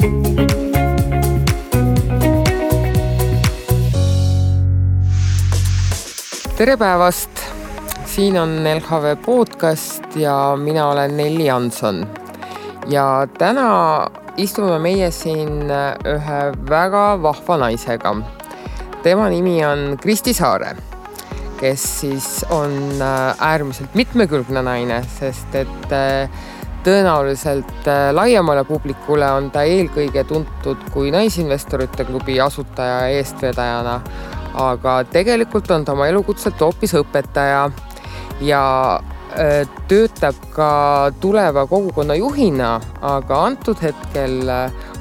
Tere päevast! Siin on LHV podcast ja mina olen Nelli Jansson. Ja täna istume meie siin ühe väga vahva naisega. Tema nimi on Kristi Saare, kes siis on äärmiselt mitmekülgne naine, sest et tõenäoliselt laiemale publikule on ta eelkõige tuntud kui Naisinvestorite klubi asutaja ja eestvedajana, aga tegelikult on ta oma elukutselt hoopis õpetaja ja töötab ka tuleva kogukonna juhina, aga antud hetkel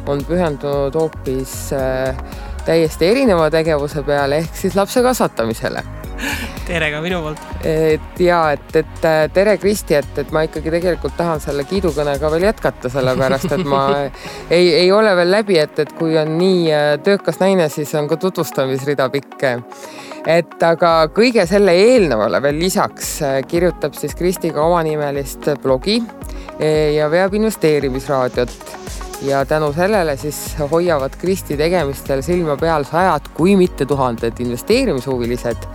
on pühendunud hoopis täiesti erineva tegevuse peale ehk siis lapse kasvatamisele. Tere ka minu poolt. Tere Kristi, et ma ikkagi tegelikult tahan selle kiidukõnega veel jätkata, sellepärast, et ma ei ole veel läbi, et kui on nii töökas naine, siis on ka tutvustamisrida pikk. Aga kõige selle eelnevale veel lisaks kirjutab siis Kristi ka omanimelist blogi ja veab investeerimisraadiot. Ja tänu sellele siis hoiavad Kristi tegemistel silma peal 100, kui mitte 1000 investeerimishuvilised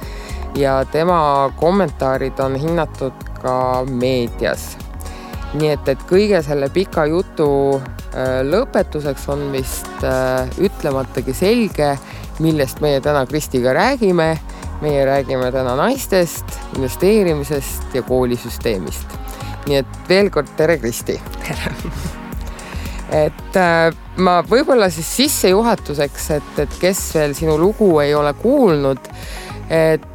ja tema kommentaarid on hinnatud ka meedias. Nii et kõige selle pika jutu lõpetuseks on vist ütlematagi selge, millest meie täna Kristiga räägime. Meie räägime täna naistest, investeerimisest ja koolisüsteemist. Nii et veel kord tere Kristi! Ma võib-olla siis sissejuhatuseks, et kes veel sinu lugu ei ole kuulnud, et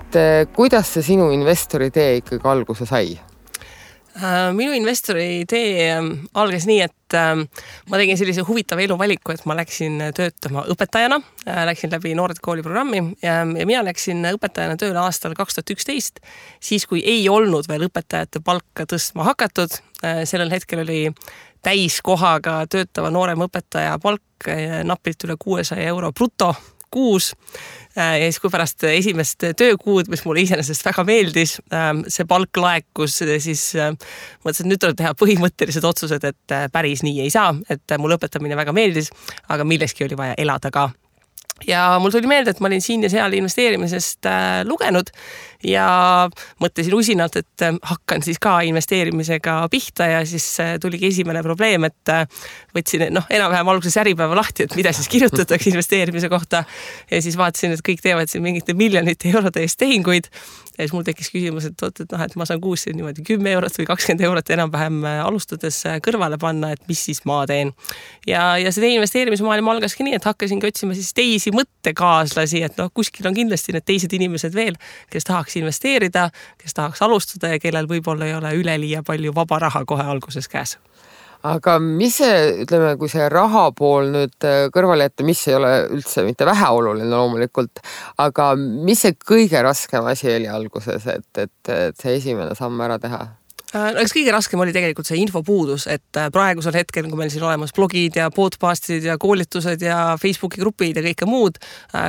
kuidas see sinu investori tee ikkagi alguse sai? Minu investori tee algas nii, et ma tegin sellise huvitava eluvaliku, et ma läksin töötama õpetajana, läksin läbi Noored kooli programmi ja mina läksin õpetajana tööle aastal 2011, siis kui ei olnud veel õpetajate palka tõstma hakatud. Sellel hetkel oli täiskohaga töötava noorem õpetaja palk napilt üle 600 euro bruto kuus. Ja siis kui pärast esimest töökuud, mis mulle iseenesest väga meeldis, see palk laekus, siis mõtlesin, et nüüd tuleb teha põhimõttelised otsused, et päris nii ei saa, et mul õpetamine väga meeldis, aga milleski oli vaja elada ka. Ja mul tuli meelde, et ma olin siin ja seal investeerimisest lugenud ja mõtlesin usinalt, et hakkan siis ka investeerimisega pihta ja siis tuligi esimene probleem, et võtsin enam-vähem alguses äripäeva lahti, et mida siis kirjutatakse investeerimise kohta ja siis vaatasin, et kõik teevad siin mingite miljonite eurode eest tehinguid ja siis mul tekkis küsimus, et ma saan kuus niimoodi 10 eurot või 20 eurot enam-vähem alustades kõrvale panna, et mis siis ma teen. Ja see investeerimismaailm algaski nii, et hakkasingi otsima siis teisi mõttekaaslasi, et kuskil on kindlasti need teised inimesed veel, kes tahaks investeerida, kes tahaks alustada ja kellel võib-olla ei ole üleliia palju vaba raha kohe alguses käes. Aga mis see, ütleme, kui see raha pool nüüd kõrvale jätta, mis ei ole üldse mitte väheoluline loomulikult, aga mis see kõige raskem asi oli alguses, et see esimene samm ära teha? Eks kõige raskem oli tegelikult see infopuudus, et praegusel hetkel, kui meil siin olemas blogid ja podcastid ja koolitused ja Facebooki grupid ja kõike muud,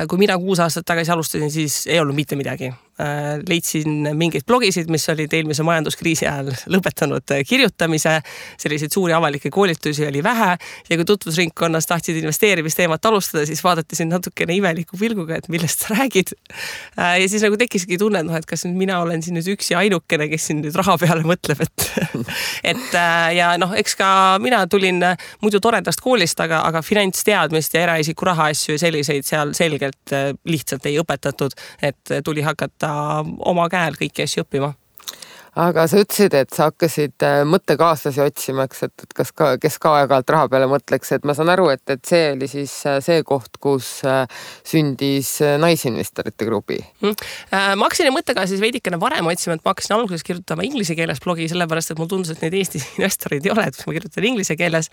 kui mina 6 aastat tagasi alustasin, siis ei olnud mitte midagi. Leidsin mingeid blogisid, mis olid eelmise majanduskriisi ajal lõpetanud kirjutamise, selliseid suuri avalikke koolitusi oli vähe ja kui tutvusringkonnas tahtsid investeerimisteemat alustada, siis vaadati siin natukene imeliku pilguga, et millest sa räägid. Ja siis tekkiski tunne, et kas mina olen siin nüüd üks ja ainukene, kes siin nüüd raha peale mõtleb, ja eks ka mina tulin muidu toredast koolist, aga finantsteadmist ja eraisiku raha asju ja selliseid seal selgelt lihtsalt ei õpetatud, et tuli hakata oma käel kõiki asju õppima. Aga sa ütlesid, et sa hakkasid mõttekaaslasi otsima, et kes ka aeg-ajalt raha peale mõtleks, et ma saan aru, et see oli siis see koht, kus sündis Naisinvestorite klubi. Ma hakkasin mõttekaaslasi veidikene varem otsima, et ma hakkasin alguses kirjutama inglise keeles blogi, sellepärast, et mul tundus, et neid Eesti investorid ei ole, et ma kirjutan inglise keeles.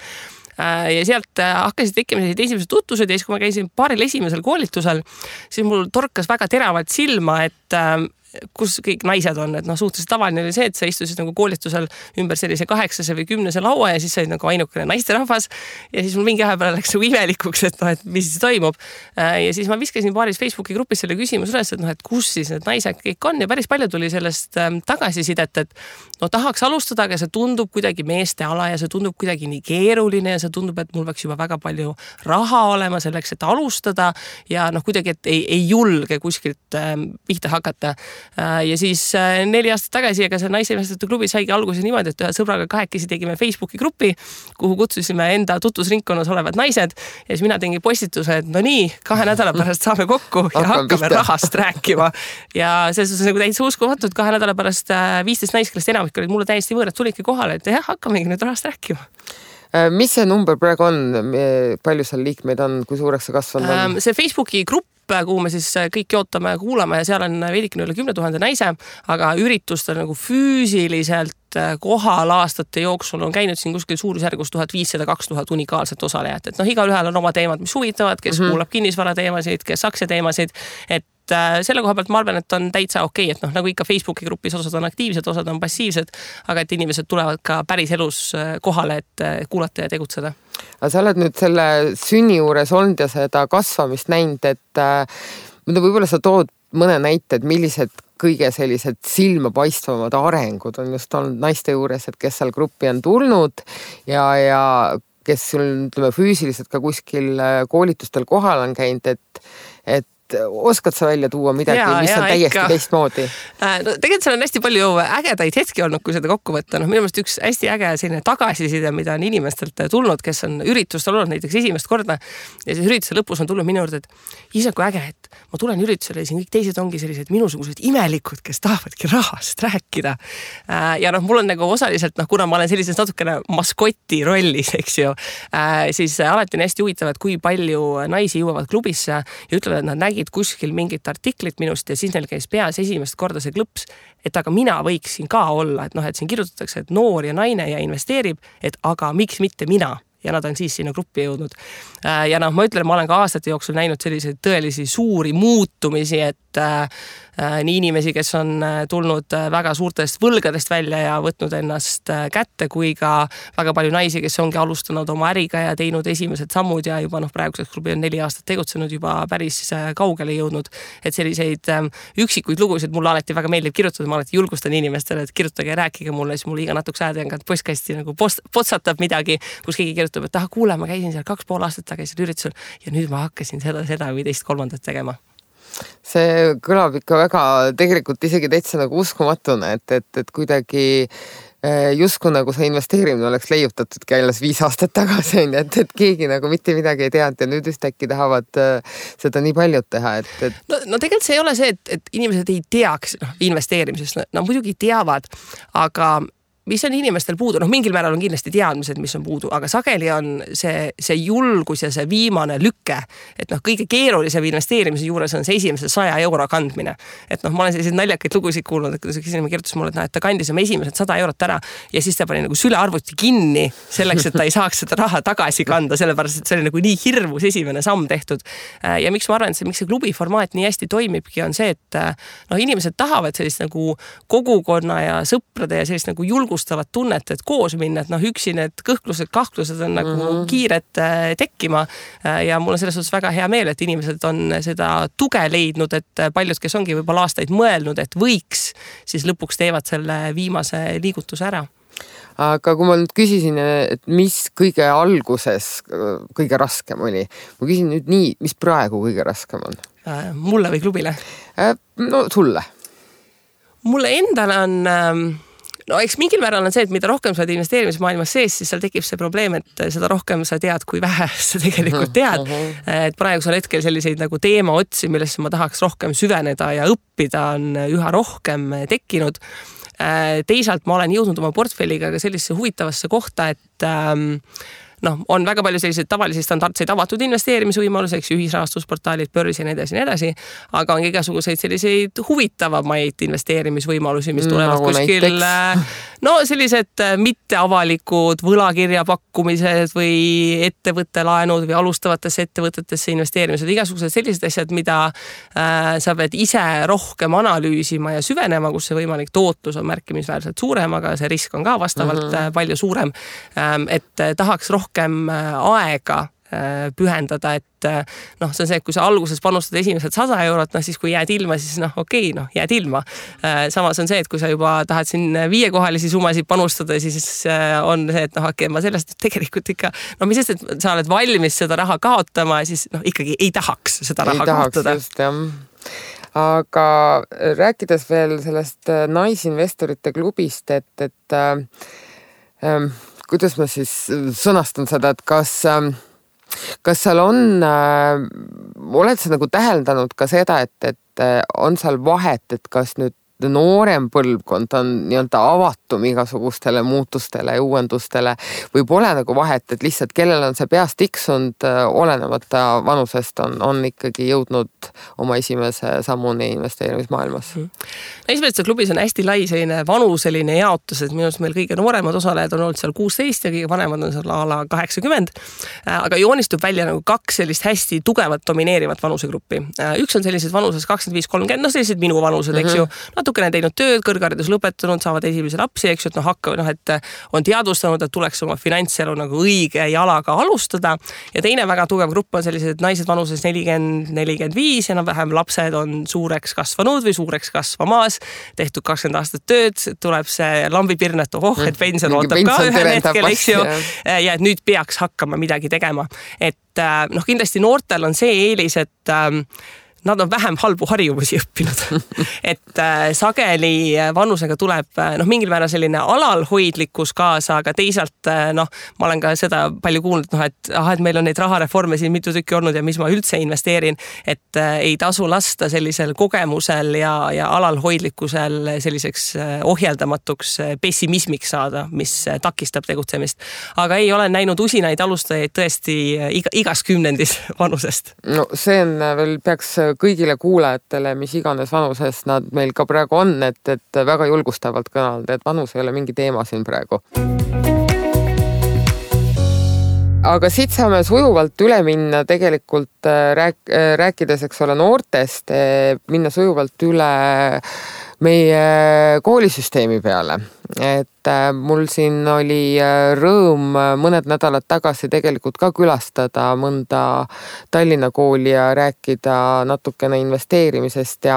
Ja sealt hakkasid tekkima esimesed tutvused ja siis, kui ma käisin paaril esimesel koolitusel, siis mul torkas väga teravalt silma, et kus kõik naised on, et suhteliselt tavaline oli see, et sa istusid nagu koolitusel ümber sellise 8 või 10 laua ja siis sa olid nagu ainukene naisterahvas ja siis mul mingi aja peale läks nagu imelikuks, et mis siis toimub. Ja siis ma viskasin paaris Facebooki grupis selle küsimus üles, et kus siis need naised kõik on ja päris palju tuli sellest tagasisidet, et tahaks alustada, aga see tundub kuidagi meeste ala ja see tundub kuidagi nii keeruline ja see tundub, et mul peaks juba väga palju raha olema selleks, et alustada ja kuidagi, et ei julge kuskilt pihta hakata. Ja siis 4 aastat tagasi, aga see naisinvestorite klubi saigi alguse niimoodi, et ühe sõbraga kahekesi tegime Facebooki grupi, kuhu kutsusime enda tutvusringkonnas olevad naised ja siis mina tegin postituse, et no nii, 2 nädala pärast saame kokku ja hakkame rahast rääkima. Ja selles on nagu täitsa uskumatud, 2 nädala pärast 15 naist, kellest enamik olid mulle täiesti võõrad, tulidki kohale, et jah, hakkamegi nüüd rahast rääkima. Mis see number praegu on? Palju seal liikmeid on? Kui suureks see kasvanud on? See Facebooki grupp, kuhu me siis kõik jootame ja kuulame ja seal on veidikene üle 10 000 naise, aga üritustel nagu füüsiliselt kohal aastate jooksul on käinud siin kuskil suurusjärgus 1500-2000 unikaalset osalejat. Et igaühel on oma teemad, mis huvitavad, kes kuulab kinnisvara teemasid, kes aktsia teemasid, et selle koha pealt ma arvan, et on täitsa okei, et nagu ikka Facebooki grupis osad on aktiivsed, osad on passiivsed, aga et inimesed tulevad ka päris elus kohale, et kuulata ja tegutseda. Aga sa oled nüüd selle sünni juures olnud ja seda kasvamist näinud, et võib-olla sa tood mõne näite, et millised kõige sellised silmapaistvamad arengud on just olnud naiste juures, et kes seal gruppi on tulnud ja kes sul füüsiliselt ka kuskil koolitustel kohal on käinud, et oskad sa välja tuua midagi, mis on täiesti teistmoodi? No tegelikult seal on hästi palju ägedaid hetki olnud, kui seda kokku võtta. Minu meelest üks hästi äge selline tagasiside, mida on inimestelt tulnud, kes on üritustel olnud näiteks esimest korda ja siis ürituse lõpus on tulnud minu juurde, et ise kui äge, et ma tulen üritusele ja siin kõik teised ongi sellised minusugused imelikud, kes tahavadki rahast rääkida. Ja mul on nagu osaliselt, kuna ma olen sellises natukene maskoti rollis, eks ju, siis alati on hästi huvitav, et kui palju naisi jõuavad klubisse ja ütlevad, et nad nägid kuskil mingit artiklit minust ja siis neil käis peas esimest korda see klõps, et aga mina võiksin ka olla, et siin kirjutatakse, et noor ja naine ja investeerib, et aga miks mitte mina? Ja nad on siis sinna gruppi jõudnud. Ja ma ütlen, ma olen ka aastate jooksul näinud selliseid tõelisi suuri muutumisi, et nii inimesi, kes on tulnud väga suurtest võlgadest välja ja võtnud ennast kätte, kui ka väga palju naisi, kes ongi alustanud oma äriga ja teinud esimesed sammud ja juba praeguseks klubi on 4 aastat tegutsenud, juba päris kaugele jõudnud. Et selliseid üksikuid lugusid mulle alati väga meeldib kirjutada, ma alati julgustan inimestele, et kirjutage ja rääkige mulle, siis mulle iga natukese ajaga postkasti nagu potsatab midagi, kus keegi kirjutab, et kuule, ma käisin seal 2,5 aastat tagasi üritusel ja nüüd ma hakkasin seda või teist kolmandat tegema. See kõlab ikka väga tegelikult isegi täitsa nagu uskumatuna, et kuidagi justkui nagu see investeerimine oleks leiutatud alles 5 aastat tagasi, et keegi nagu mitte midagi ei teadnud ja nüüd ühtäkki tahavad seda nii paljud teha. No tegelikult see ei ole see, et inimesed ei teaks investeerimisest, nad muidugi teavad, aga mis on inimestel puudu? Mingil määral on kindlasti teadmised, mis on puudu, aga sageli on see julgus ja see viimane lükke, et kõige keerulisem investeerimise juures on see esimese 100 euro kandmine. Et ma olen selliseid naljakaid lugusid kuulnud, et kui see kirjutas mulle, et ta kandis oma esimesed 100 eurot ära ja siis ta pani nagu sülearvuti kinni selleks, et ta ei saaks seda raha tagasi kanda, sellepärast, et see oli nagu nii hirmus esimene samm tehtud. Ja miks ma arvan, et miks see klubi formaat nii hästi toimibki, on see, et inimesed tahavad sellist nagu kogukonna ja sõprade ja sellist nagu julgustavat tunnet, et koos minna, et üksi need kõhklused, kahtlused on nagu kiired tekkima ja mul on selles suhtes väga hea meel, et inimesed on seda tuge leidnud, et paljud, kes ongi võib-olla aastaid mõelnud, et võiks, siis lõpuks teevad selle viimase liigutuse ära. Aga kui ma nüüd küsisin, et mis kõige alguses kõige raskem oli, ma küsin nüüd nii, mis praegu kõige raskem on? Mulle või klubile? No sulle. Mulle endale on eks mingil määral on see, et mida rohkem sa oled investeerimismaailmas sees, siis seal tekib see probleem, et seda rohkem sa tead, kui vähe sa tegelikult tead. Et praegusel hetkel selliseid nagu teema otsi, millesse ma tahaks rohkem süveneda ja õppida, on üha rohkem tekkinud. Teisalt ma olen jõudnud oma portfelliga ka sellisesse huvitavasse kohta, et on väga palju selliseid tavalisi standardseid avatud investeerimisvõimalusi, eks ühisrahastusportaalid, börs ja nii edasi, aga on igasuguseid selliseid huvitavamaid investeerimisvõimalusi, mis tulevad kuskil, sellised mitteavalikud võlakirjapakkumised või ettevõttelaenud või alustavatesse ettevõtetesse investeerimised, igasugused sellised asjad, mida sa pead ise rohkem analüüsima ja süvenema, kus see võimalik tootlus on märkimisväärselt suurem, aga see risk on ka vastavalt palju suurem, et tahaks rohkem aega pühendada, et see on see, et kui sa alguses panustad esimesed 100 eurot, siis kui jääd ilma, siis jääd ilma. Samas on see, et kui sa juba tahad siin 5-kohalisi summasid panustada, siis on see, et ma sellest tegelikult ikka, mis sest, et sa oled valmis seda raha kaotama, siis ikkagi ei tahaks seda raha kaotada. Just, jah. Aga rääkides veel sellest naisinvestorite klubist, et kuidas ma siis sõnastan seda, et kas seal oled sa nagu täheldanud ka seda, et on seal vahet, et kas nüüd noorem põlvkond on nii-öelda avatum igasugustele muutustele ja uuendustele või pole nagu vahet, et lihtsalt kellel on see peast tiksunud, olenemata vanusest on ikkagi jõudnud oma esimese sammuni investeerimismaailmas. Esimestes klubis on hästi lai selline vanuseline jaotus, et minu arust meil kõige nooremad osalejad on olnud seal 16 ja kõige vanemad on seal ala 80, aga joonistub välja nagu 2 sellist hästi tugevat domineerivat vanusegruppi. Üks on sellised vanuses 25-30, sellised minu vanused, eks ju, natukene teinud tööd, kõrgharidus lõpetanud, saavad esimese lapsi, eks ju, et on teadvustanud, et tuleks oma finantselu nagu õige jalaga alustada. Ja teine väga tugev grupp on sellised naised vanuses 40-45, enam-vähem lapsed on suureks kasvanud või suureks kasvamas, tehtud 20 aastat tööd, tuleb see lambipirn, et et pension ootab ka ühel hetkel, eks ju, ja et nüüd peaks hakkama midagi tegema. Et kindlasti noortel on see eelis, et nad on vähem halbu harjumusi õppinud. Et sageli vanusega tuleb mingil määral selline alalhoidlikkus kaasa, aga teisalt ma olen ka seda palju kuulnud, et meil on neid rahareforme siin mitu tükki olnud ja mis ma üldse investeerin, et ei tasu lasta sellisel kogemusel ja alalhoidlikkusel selliseks ohjeldamatuks pessimismiks saada, mis takistab tegutsemist. Aga ei ole näinud usinaid alustajaid tõesti igas kümnendis vanusest. No see on veel peaks kõigile kuulajatele, mis iganes vanuses nad meil ka praegu on, et väga julgustavalt kõnelnud, et vanus ei ole mingi teema siin praegu. Aga siit saame sujuvalt üle minna tegelikult rääkides, eks ole, noortest, minna sujuvalt üle meie koolisüsteemi peale. Et mul siin oli rõõm mõned nädalad tagasi tegelikult ka külastada mõnda Tallinna kooli ja rääkida natukene investeerimisest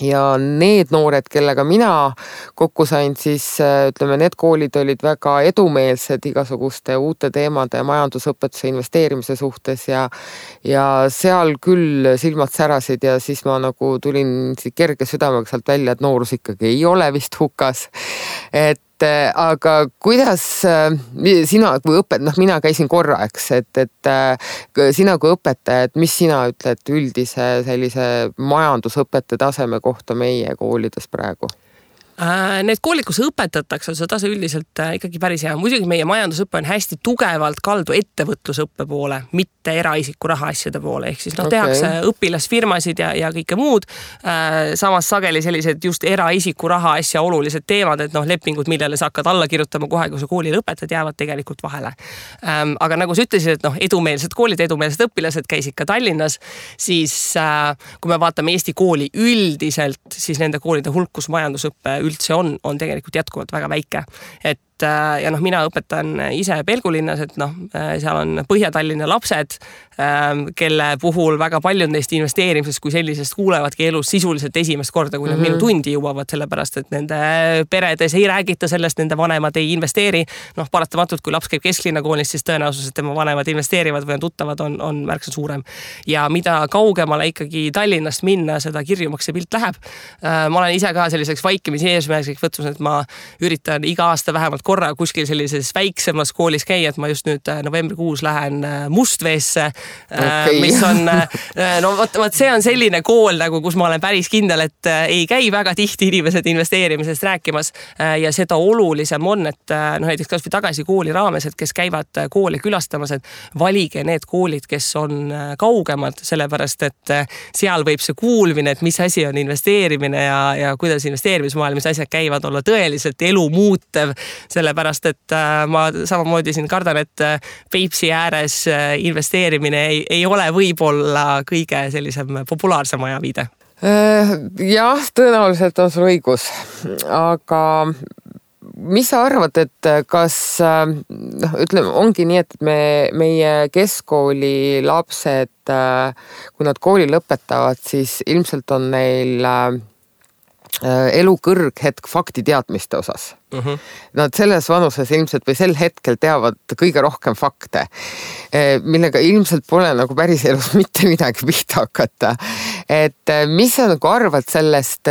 ja need noored, kellega mina kokku sain, siis ütleme, need koolid olid väga edumeelsed igasuguste uute teemade majandusõpetuse investeerimise suhtes ja seal küll silmad särasid ja siis ma nagu tulin kerge südamega sealt välja, et noorus ikkagi ei ole vist hukas. Aga kuidas sina kui mina käisin korra, eks, et sina kui õpetaja, et mis sina ütled üldise sellise majandusõpetaja taseme kohta meie koolides praegu? Need koolid, kus õpetatakse, see tase üldiselt ikkagi päris hea. Muidugi meie majandusõppe on hästi tugevalt kaldu ettevõtlusõppe poole, mitte eraisiku rahaasjade poole. Ehk siis tehakse õpilasfirmasid ja kõike muud. Samas sageli sellised just eraisiku rahaasja olulised teemad, et lepingud, millele sa hakkad alla kirjutama kohe, kui sa koolile õpetad, jäävad tegelikult vahele. Aga nagu sa ütlesid, et edumeelsed koolid, edumeelsed õpilased käisid ka Tallinnas, siis kui me vaatame Eesti kooli üldiselt, siis nende koolide hulk, kus majandusõppe üldse on tegelikult jätkuvalt väga väike. Ja mina õpetan ise Pelgulinnas, et seal on Põhja-Tallinna lapsed, kelle puhul väga paljud neist investeerimisest kui sellisest kuulevadki elus sisuliselt esimest korda, kui nad minu tundi jõuavad, sellepärast, et nende peredes ei räägita sellest, nende vanemad ei investeeri. Paratamatult, kui laps käib kesklinna koolis, siis tõenäosus, et tema vanemad investeerivad või on tuttavad, on märksa suurem. Ja mida kaugemale ikkagi Tallinnast minna, seda kirjumaks see pilt läheb. Ma olen ise ka selliseks vaikimisi eesmärgiks võtnud, et ma üritan iga aasta vähemalt korra kuskil sellises väiksemas koolis käia, et ma just nüüd novembrikuus lähen Mustveesse, mis on, no vot see on selline kool nagu, kus ma olen päris kindel, et ei käi väga tihti inimesed investeerimisest rääkimas ja seda olulisem on, et näiteks kas või tagasi kooli raames, et kes käivad kooli külastamas, et valige need koolid, kes on kaugemad, sellepärast, et seal võib see kuulmine, et mis asi on investeerimine ja kuidas investeerimismaailmas asjad käivad, olla tõeliselt elu muutev, sellepärast, et ma samamoodi siin kardan, et Peipsi ääres investeerimine ei ole võib-olla kõige sellisem populaarsem ajaviide. Jah, tõenäoliselt on sul õigus, aga mis sa arvad, et kas, ütleme, ongi nii, et meie keskkooli lapsed, kui nad kooli lõpetavad, siis ilmselt on neil elu kõrghetk faktiteadmiste osas. Nad selles vanuses ilmselt või sel hetkel teavad kõige rohkem fakte, millega ilmselt pole nagu päris elus mitte midagi pihta hakata. Et mis sa nagu arvad sellest,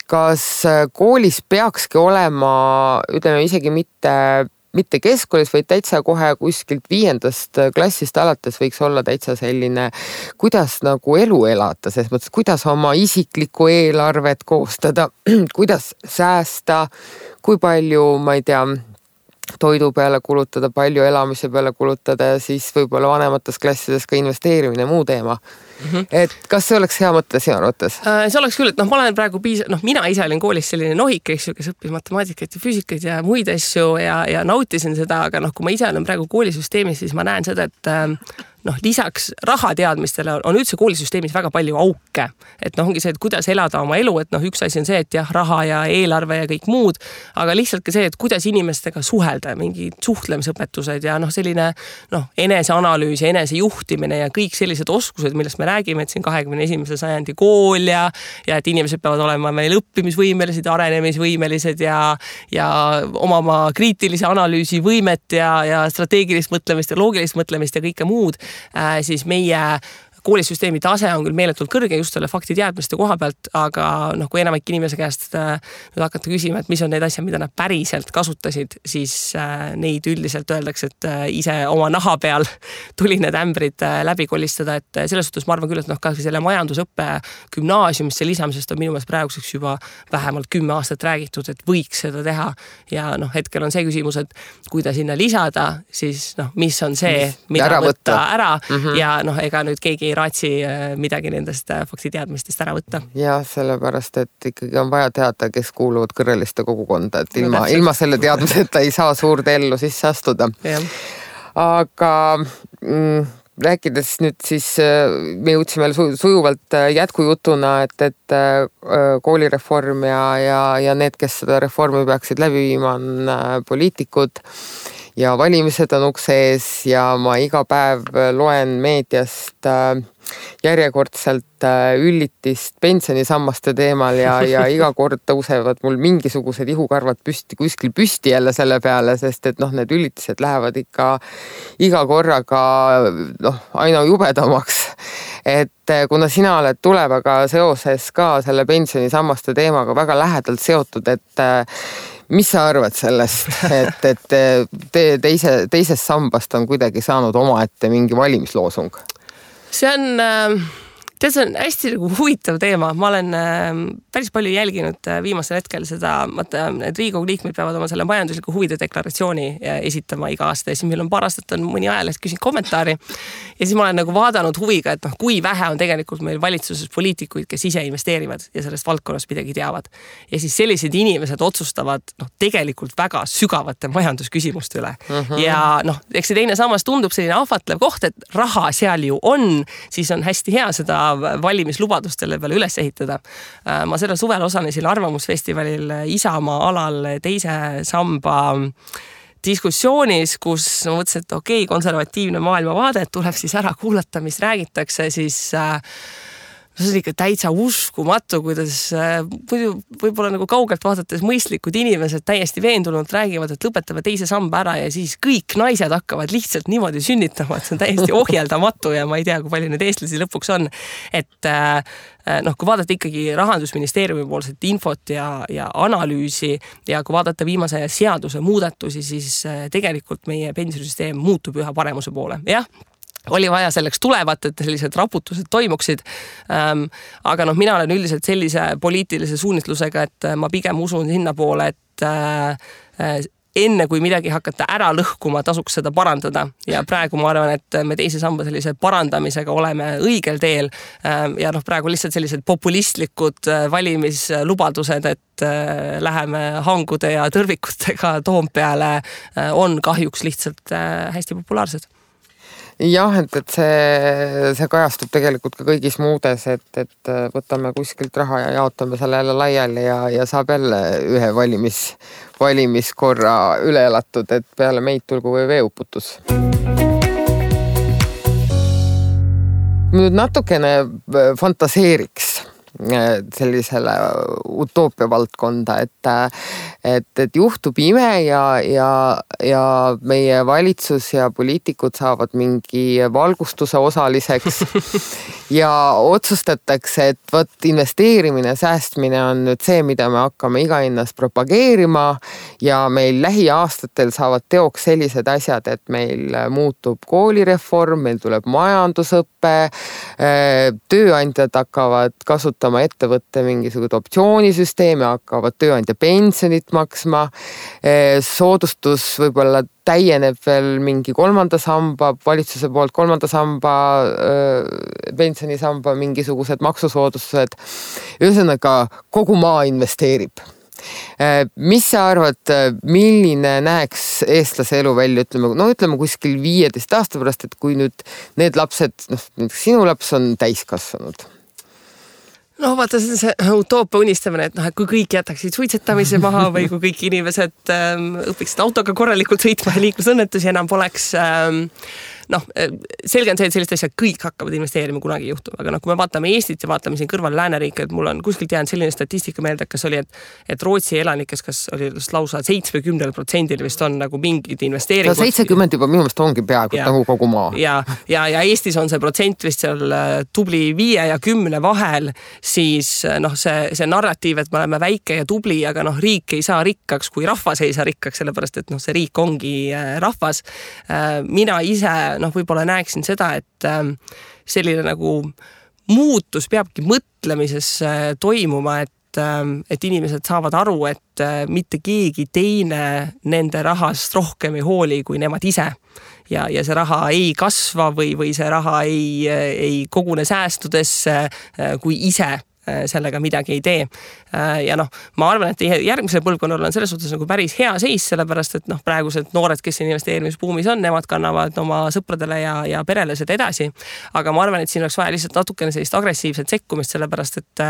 kas koolis peakski olema, ütleme isegi mitte keskkoolis, vaid täitsa kohe kuskilt 5. klassist alates võiks olla täitsa selline, kuidas nagu elu elada, selles mõttes, kuidas oma isiklikku eelarvet koostada, kuidas säästa, kui palju, ma ei tea, toidu peale kulutada, palju elamise peale kulutada ja siis võib-olla vanemates klassides ka investeerimine, muu teema. Et kas see oleks hea mõte sinu arvates? See oleks küll, et ma olen praegu mina ise olin koolis selline nohik, kes õppis matemaatikat ja füüsikat ja muid asju ja nautisin seda, aga kui ma ise olen praegu koolisüsteemis, siis ma näen seda, et lisaks rahateadmistele on üldse koolisüsteemis väga palju auke. Et ongi see, et kuidas elada oma elu, et üks asi on see, et jah, raha ja eelarve ja kõik muud, aga lihtsalt ka see, et kuidas inimestega suhelda, mingid suhtlemisõpetused ja selline eneseanalüüs ja enesejuhtimine ja kõik sellised oskused, millest me räägime, et siin 21. sajandi kool ja et inimesed peavad olema meil õppimisvõimelised, arenemisvõimelised ja omama kriitilise analüüsi võimet ja strateegilist mõtlemist ja loogilist mõtlemist ja kõike muud, siis meie koolisüsteemi tase on küll meeletult kõrge just selle faktiteadmiste koha pealt, aga kui enamik inimese käest nüüd hakata küsima, et mis on need asjad, mida nad päriselt kasutasid, siis neid üldiselt öeldakse, et ise oma naha peal tuli need ämbrid läbi kolistada, et selles suhtes ma arvan küll, et ka selle majandusõppe gümnaasiumisse lisamisest on minu meelest praeguseks juba vähemalt 10 aastat räägitud, et võiks seda teha ja hetkel on see küsimus, et kui ta sinna lisada, siis mis on see, mida võtta ära ja ega nüüd keegi ei raatsi midagi nendest faktiteadmistest ära võtta. Ja sellepärast, et ikkagi on vaja teada, kes kuuluvad kõrreliste kogukonda, et ilma selle teadmiseta ei saa suurde ellu sisse astuda. Ja. Aga rääkides nüüd siis, me jõudsime sujuvalt jätkujutuna, et koolireform ja need, kes seda reformi peaksid läbi viima, on poliitikud ja valimised on ukse ees ja ma iga päev loen meediast järjekordselt üllitist pensionisammaste teemal ja iga kord tõusevad mul mingisugused ihukarvad kuskil püsti jälle selle peale, sest et need üllitised lähevad ikka iga korraga aina jubedamaks. Et kuna sina oled tulevaga seoses ka selle pensionisammaste teemaga väga lähedalt seotud, et mis sa arvad sellest, et teisest sambast on kuidagi saanud omaette mingi valimisloosung? See on hästi huvitav teema. Ma olen päris palju jälginud viimasel hetkel seda, et Riigikogu liikmed peavad oma selle majandusliku huvide deklaratsiooni esitama iga aasta ja siis meil on paar aastat on mõni ajaleht küsinud kommentaari ja siis ma olen vaadanud huviga, et kui vähe on tegelikult meil valitsuses poliitikuid, kes ise investeerivad ja sellest valdkonnast midagi teavad. Ja siis sellised inimesed otsustavad tegelikult väga sügavate majandusküsimuste üle. Ja eks see teine sammas tundub selline ahvatlev koht, et raha seal ju on, siis on hästi hea seda valimislubadustele peale üles ehitada. Ma selle suvel osalesin Arvamusfestivalil Isamaa alal teise samba diskussioonis, kus ma mõtlesin, et konservatiivne maailmavaade tuleb siis ära kuulata, mis räägitakse, siis see on ikka täitsa uskumatu, kuidas muidu võib-olla nagu kaugelt vaadates mõistlikud inimesed täiesti veendunult räägivad, et lõpetame teise samba ära ja siis kõik naised hakkavad lihtsalt niimoodi sünnitama, et see on täiesti ohjeldamatu ja ma ei tea, kui palju need eestlasi lõpuks on. Et kui vaadata ikkagi Rahandusministeeriumi poolset infot ja analüüsi ja kui vaadata viimase seaduse muudatusi, siis tegelikult meie pensionisüsteem muutub üha paremuse poole. Jah, oli vaja selleks tulevat, et sellised raputused toimuksid. Aga mina olen üldiselt sellise poliitilise suunitlusega, et ma pigem usun sinna poole, et enne kui midagi hakata ära lõhkuma, tasuks seda parandada. Ja praegu ma arvan, et me teise samba sellise parandamisega oleme õigel teel. Ja praegu lihtsalt sellised populistlikud valimislubadused, et läheme hangude ja tõrvikutega Toompeale, on kahjuks lihtsalt hästi populaarsed. Jah, et see kajastub tegelikult ka kõigis muudes, et võtame kuskilt raha ja jaotame selle jälle laiali ja saab jälle ühe valimiskorra üle elatud, et peale meid tulgu või veeuputus. Nüüd natukene fantaseeriks sellisele utoopia valdkonda, et juhtub ime ja meie valitsus ja poliitikud saavad mingi valgustuse osaliseks ja otsustatakse, et võt investeerimine, säästmine on nüüd see, mida me hakkame iga hinnas propageerima ja meil lähiaastatel saavad teoks sellised asjad, et meil muutub koolireform, meil tuleb majandusõppe, tööandjad hakkavad kasutama ettevõtte mingisugust optsioonisüsteemi, hakkavad tööandja pensionit maksma, soodustus võib-olla täieneb veel mingi kolmanda samba, valitsuse poolt kolmanda samba, pensionisamba mingisugused maksusoodustused. Ühesõnaga, kogu maa investeerib. Mis sa arvad, milline näeks eestlase elu välja, ütleme kuskil 15 aasta pärast, et kui nüüd need lapsed, sinu laps on täiskasvanud? No vaata, see utoopia unistamine, et kui kõik jätaksid suitsetamise maha või kui kõik inimesed õpiksid autoga korralikult sõitma ja liiklusõnnetusi enam poleks. Selge on see, et sellist asja kõik hakkavad investeerima kunagi juhtuma, aga kui me vaatame Eestit ja vaatame siin kõrval lääneriike, et mul on kuskilt jäänud selline statistika meelde, kas oli, et Rootsi elanikes, kas oli lausa 70% vist on nagu mingid investeeringud. 70 juba minu meelest ongi peaaegu nagu kogu maa. Ja Eestis on see protsent vist seal tubli 5 ja 10 vahel, siis see narratiiv, et me oleme väike ja tubli, aga riik ei saa rikkaks, kui rahvas ei saa rikkaks, sellepärast et see riik ongi rahvas. Mina ise võib-olla näeksin seda, et selline nagu muutus peabki mõtlemises toimuma, et inimesed saavad aru, et mitte keegi teine nende rahast rohkem ei hooli kui nemad ise. Ja see raha ei kasva või see raha ei kogune säästudesse, kui ise sellega midagi ei tee. Ja ma arvan, et järgmisel põlvkonnal on selles suhtes nagu päris hea seis, sellepärast, et praegused noored, kes investeerimisbuumis on, nemad kannavad oma sõpradele ja perele seda edasi. Aga ma arvan, et siin oleks vaja lihtsalt natukene sellist agressiivset sekkumist, sellepärast, et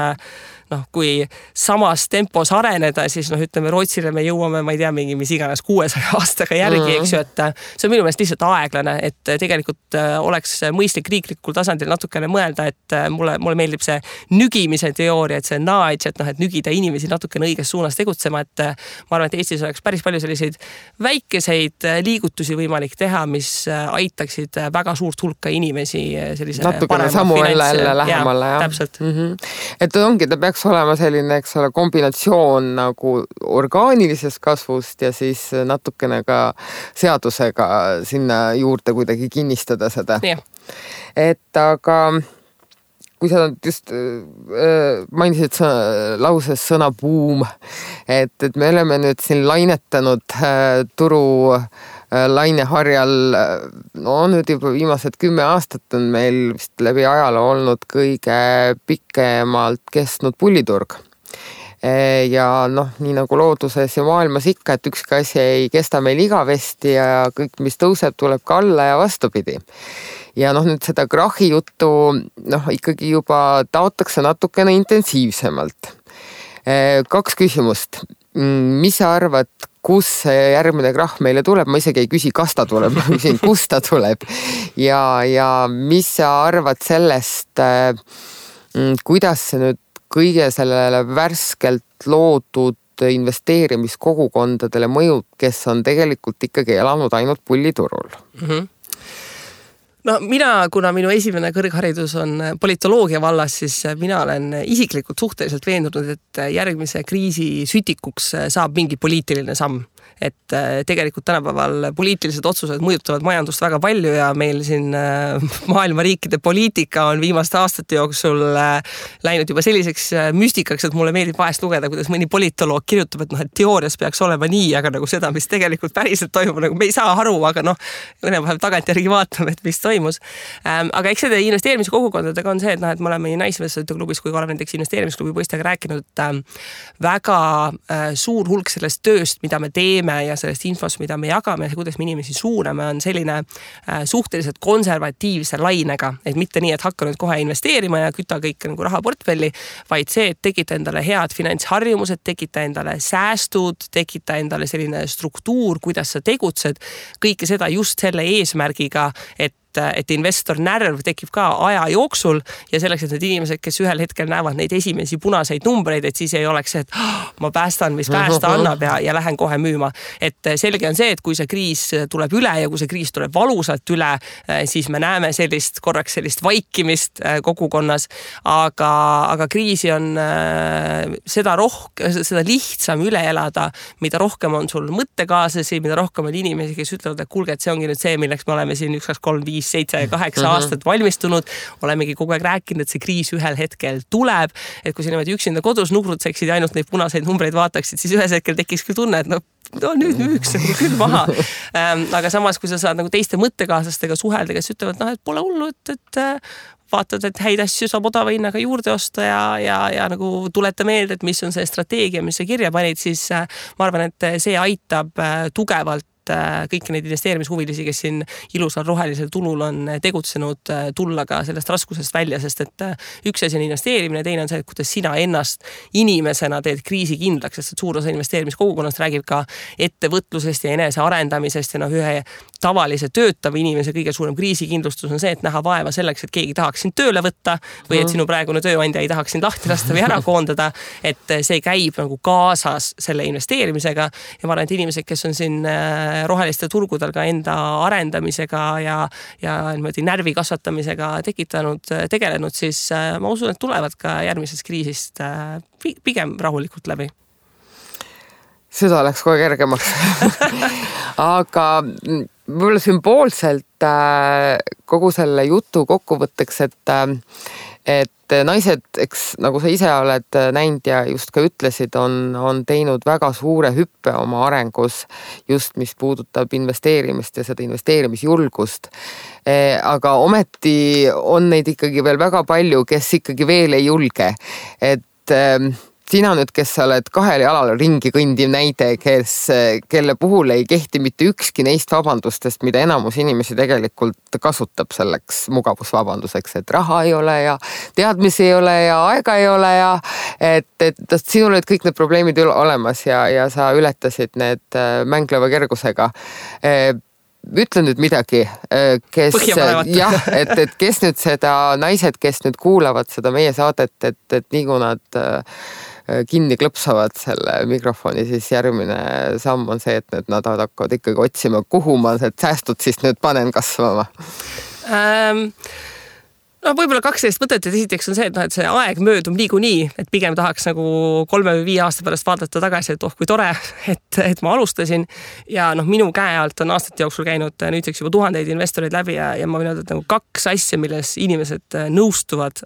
kui samas tempos areneda, siis ütleme Rootsile me jõuame, ma ei tea, mis iganes 600 aastaga järgi, eks ju, et see on minu meelest lihtsalt aeglane, et tegelikult oleks mõistlik riiklikul tasandil natukene mõelda, et mulle meeldib see nügimise teooria, et see nudge, et nügida inimesi natukene õiges suunas tegutsema, et ma arvan, et Eestis oleks päris palju selliseid väikeseid liigutusi võimalik teha, mis aitaksid väga suurt hulka inimesi sellise natukene samu jälle lähemale. Täpselt. Et ongi, ta peaks olema selline, eks ole, kombinatsioon nagu orgaanilisest kasvust ja siis natukene ka seadusega sinna juurde kuidagi kinnistada seda. Yeah. Et aga kui sa just mainisid lauses sõna buum, et me oleme nüüd siin lainetanud turu laineharjal, nüüd juba viimased 10 aastat on meil vist läbi ajaloo olnud kõige pikemalt kestnud pulliturg. Ja nii nagu looduses ja maailmas ikka, et ükski asi ei kesta meil igavesti ja kõik, mis tõuseb, tuleb ka alla ja vastupidi. Ja nüüd seda krahi juttu ikkagi juba taotakse natukene intensiivsemalt. 2 küsimust. Mis sa arvad, kus see järgmine krahh meile tuleb? Ma isegi ei küsi, kas ta tuleb, ma küsin, kus ta tuleb. Ja mis sa arvad sellest, kuidas see nüüd kõige sellele värskelt loodud investeerimiskogukondadele mõjub, kes on tegelikult ikkagi elanud ainult pulliturul? No kuna minu esimene kõrgharidus on politoloogia vallas, siis mina olen isiklikult suhteliselt veendunud, et järgmise kriisi sütikuks saab mingi poliitiline samm. Et tegelikult tänapäeval poliitilised otsused mõjutavad majandust väga palju ja meil siin maailma riikide poliitika on viimaste aastate jooksul läinud juba selliseks müstikaks, et mulle meeldib vahest lugeda, kuidas mõni politoloog kirjutab, et teoorias peaks olema nii, aga nagu seda, mis tegelikult päriselt toimub, nagu me ei saa aru, aga õnnepäev tagantjärgi vaatame, et mis toimus. Aga eks see investeerimiskogukondadega on see, et me oleme nii Naisinvestorite klubis kui ka oleme näiteks investeerimisklubi poistega rääkinud, et väga suur hulk sellest tööst, mida me teeme ja sellest infost, mida me jagame ja kuidas me inimesi suuname, on selline suhteliselt konservatiivse lainega, et mitte nii, et hakka nüüd kohe investeerima ja kütta kõik nagu rahaportfelli, vaid see, et tekita endale head finantsharjumused, tekita endale säästud, tekita endale selline struktuur, kuidas sa tegutsed, kõike seda just selle eesmärgiga, et investor närv tekib ka aja jooksul ja selleks, et need inimesed, kes ühel hetkel näevad neid esimesi punaseid numbreid, et siis ei oleks see, et ma päästan, mis päästa annab ja lähen kohe müüma. Et selge on see, et kui see kriis tuleb üle ja kui see kriis tuleb valusalt üle, siis me näeme korraks sellist vaikimist kogukonnas, aga kriisi on seda lihtsam üle elada, mida rohkem on sul mõttekaaslasi, mida rohkem on inimesi, kes ütlevad, et kuulge, et see ongi nüüd see, milleks me oleme siin 1, 2, 3, 5, 7 ja 8 aastat valmistunud, olemegi kogu aeg rääkinud, et see kriis ühel hetkel tuleb, et kui sa niimoodi üksinda kodus nugrutseksid ja ainult neid punaseid numbreid vaataksid, siis ühes hetkel tekiks küll tunne, et nüüd müüks küll maha. Aga samas, kui sa saad nagu teiste mõttekaaslastega suhelda, kes ütlevad, et pole hullu, et vaatad, et häid asju saab odava hinnaga juurde osta ja nagu tuleta meelde, et mis on see strateegia, mis sa kirja panid, siis ma arvan, et see aitab tugevalt kõiki neid investeerimishuvilisi, kes siin ilusal rohelisel tulul on tegutsenud, tulla ka sellest raskusest välja, sest et üks asi on investeerimine, teine on see, et kuidas sina ennast inimesena teed kriisi kindlaks, sest et suur osa investeerimiskogukonnast räägib ka ettevõtlusest ja enese arendamisest ja ühe tavalise töötava inimese kõige suurem kriisikindlustus on see, et näha vaeva selleks, et keegi tahaks sind tööle võtta või et sinu praegune tööandja ei tahaks sind lahti lasta või ära koondada, et see käib nagu kaasas selle investeerimisega ja ma arvan, et inimesed, kes on siin roheliste turgudel ka enda arendamisega ja niimoodi närvi kasvatamisega tegelenud, siis ma usun, et tulevad ka järgmisest kriisist pigem rahulikult läbi. Süda läks kohe kergemaks. Aga võib-olla sümboolselt kogu selle jutu kokkuvõtteks, et naised, eks nagu sa ise oled näinud ja just ka ütlesid, on teinud väga suure hüppe oma arengus, just mis puudutab investeerimist ja seda investeerimisjulgust. Aga ometi on neid ikkagi veel väga palju, kes ikkagi veel ei julge. Et sina nüüd, kes sa oled kahel jalal ringi kõndiv näide, kelle puhul ei kehti mitte ükski neist vabandustest, mida enamus inimesi tegelikult kasutab selleks mugavusvabanduseks, et raha ei ole ja teadmisi ei ole ja aega ei ole ja et sinul olid kõik need probleemid olemas ja sa ületasid need mängleva kergusega. Ütle nüüd midagi, kes nüüd seda naised, kes nüüd kuulavad seda meie saadet, et nii kui nad kinni klõpsavad selle mikrofoni, siis järgmine samm on see, et nad hakkavad ikkagi otsima, kuhu ma need säästud siis nüüd panen kasvama. Võib-olla 12 mõtet, et esiteks on see, et see aeg möödub niikuinii, et pigem tahaks nagu 3 või 5 aasta pärast vaadata tagasi, et kui tore, et ma alustasin ja minu käe alt on aastate jooksul käinud nüüdseks juba tuhandeid investoreid läbi ja ma võin öelda, et nagu 2 asja, milles inimesed nõustuvad,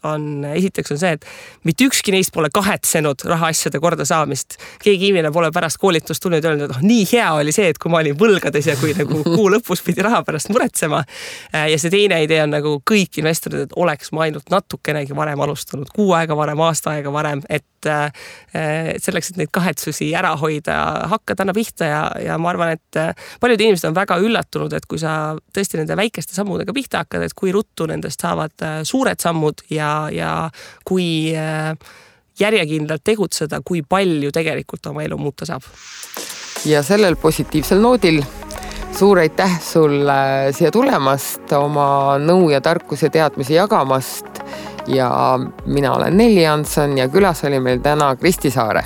esiteks on see, et mitte ükski neist pole kahetsenud rahaasjade korda saamist. Keegi inimene pole pärast koolitust tulnud ja öelnud, et nii hea oli see, et kui ma olin võlgades ja kui nagu kuu lõpus pidi raha pärast muretsema. Ja see teine idee on nagu kõik investorid, et oleks ma ainult natukenegi varem alustanud, 6 aega varem, aasta aega varem, et selleks, et neid kahetsusi ära hoida, hakkad anna pihta ja ma arvan, et paljud inimesed on väga üllatunud, et kui sa tõesti nende väikeste sammudega pihta hakkad, et kui ruttu nendest saavad suured sammud ja kui järjekindlalt tegutseda, kui palju tegelikult oma elu muuta saab. Ja sellel positiivsel noodil suur aitäh sulle siia tulemast, oma nõu ja tarkus ja teadmisi jagamast ja mina olen Nelli Janson ja külas oli meil täna Kristi Saare.